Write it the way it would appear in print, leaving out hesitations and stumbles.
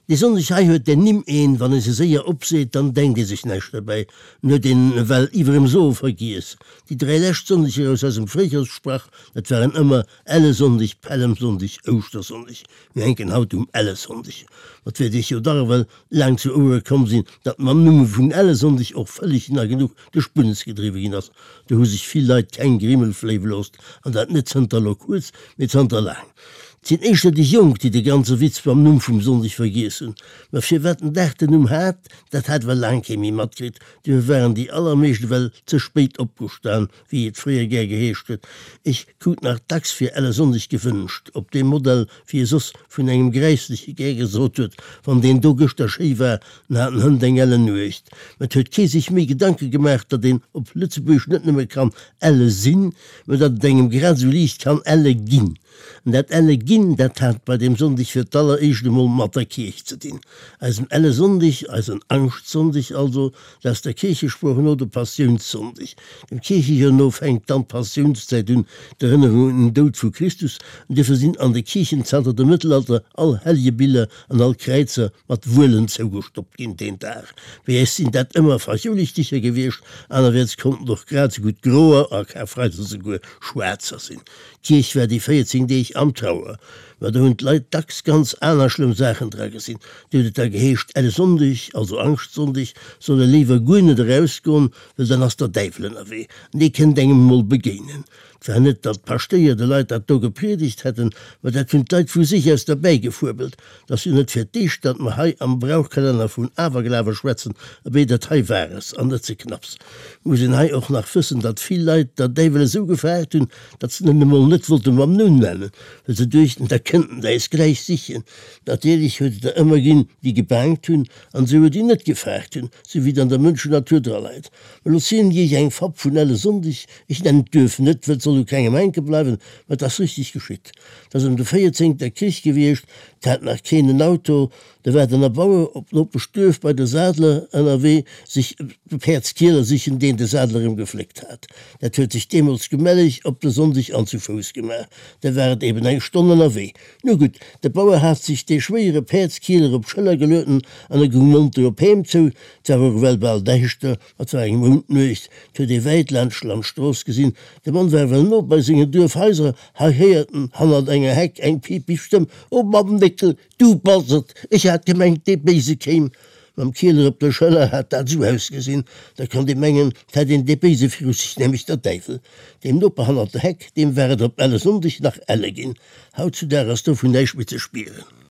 Déi Sonndeg hei huet den Nimm een, wann ee se séier opseet, dann denkt ee sech näischt derbäi, en huet een ewell iwwerem Soe vergiess. Déi 3 lescht Sonndeger aus eisem Fréijoerssprach, dat waren ëmmer Ellesonndeg, Pällemsonndeg, Ouschtersonndeg. Mir hänken haut um Ellesonndeg. Ma 't wäert iech jo dach ewell laang zu Ouere komm sinn, datt mam Numm vun Ellesonndeg och vëlleg na genuch de Spunnes gedriwwe ginn ass. Do hu sech vill Leit keng Grimmel fléiwe loosst, an dat net zënter elo kuerz, mee zanter laang. 't sinn éischter déi Jonk, déi de ganze Witz mam Numm vum Sonndeg vergiess hunn. Ma firwat den Dag den Numm hat, dat hat ewell laang kee méi matkritt. Duerfir waren déi allermeescht ewell ze spéit opgestan, wéi et fréier gär geheescht huet. Ech krut nach dacks fir Ellesonndeg gewënscht, op deem Modell, wéi e soss vun engem Gräissleche gär gesot huet, Wann deen do gëschter schéi war, dann hat en hënt eng ellen Nuecht. Mä et huet kee sech méi Gedanke gemaach, datt een op Lëtzebuergesch net nëmme kann elle sinn, mä datt et engem grad esou liicht kann elle ginn. An dat elle ginn, dat hat bei deem Sonndeg fir d'alleréischt emol mat der Kierch ze dinn. Eisen elle Sonndeg, eisen Angschtsonndeg also, dat ass der Kierchesprooch no de Passiounssonndeg. Dem Kierchejoer no fänkt dann d'Passiounszäit un, d'Erënnerung un den Doud vu Christus. An duerfir sinn an de Kierchen zanter dem Mëttelalter all Hellegebiller an all Kräizer mat Wuelen zougestoppt ginn deen Dag. Bei äis sinn dat ëmmer Fachoulichticher gewiescht, anerwäerts konnten och grad esou gutt groer a Karfreideg esouguer schwaarzer sinn. D'Kierch war déi 14 Deeg am Trauer, ma do hunn d'Leit dacks ganz aner schlëmm Saachen dra gesinn. Do huet et da geheescht, Elle Sonndeg, also Angschtsonndeg, soll e léiwer guer net erausgoen, well dann ass der Däiwel ënnerwee an dee kënnt engem emol begéinen. Et war net, datt d'Paschtéier de Leit dat do gepriedegt hätten, ma dat hunn d'Leit vu sech aus derbäigefuebelt. 't ass jo net fir d'éischt, datt mer hei am Brauchkalenner vun Awerglawe schwätzen, abee, dat hei war es, an net ze knapps. Muss een hei och nach wëssen, datt vill Leit der Däiwel esou gefaart hunn, datt se en emol net wollte mam Numm nennen, well se duechten, da kënnt en äis gläich sichen. Natierlech huet et der ëmmer ginn, déi gebaangt hunn, an esouguer déi net gefaart hunn, sou wéi et an der Mënschennatur draleit. Mä lo zielen ech iech eng Fabb vun Ellesonndeg, ech nennen d'Duerf net, well et soll u kengem hänke bleiwen, mä et ass richteg geschitt. 't ass ëm de véierzéngter Krich gewiescht, 't hat nach keen en Auto, do war den Erbauer op d'Nopeschduerf bei de Sadler ënnerwee sech e Päerdskieler sichen, deen de Sadler em gefléckt hat. Dat huet sech deemools gemelleg op de Sonndeg an zu Fouss gemaach, da war et eben eng Stonn ënnerwee. Nu gutt, de Bauer hat sech dee schwéiere Päerdskieler op d'Schëller gelueden an e goung monter op heem zou. 't war och ewell bal däischter, Et war eng Moundnuecht, 't huet ee wäit laanscht d'Landstrooss gesinn. De Mann war ewell no bei sengen Duerfhaiser. Hei héiert en hannert enger Heck eng piipig Stëmm, O Mamm Néckel, du bass et! Ech hat gemengt, dee Béise kéim. Mam Kieler op der Schëller hat dat esou ausgesinn, da konnt ee mengen, 't hätt een dee Béise viru sech, nämlech der Däiwel. Deem Noper hannert der Heck, deem war et op Ellesonndeg nach elle ginn. Hautzudag ass dovun näischt méi ze spieren.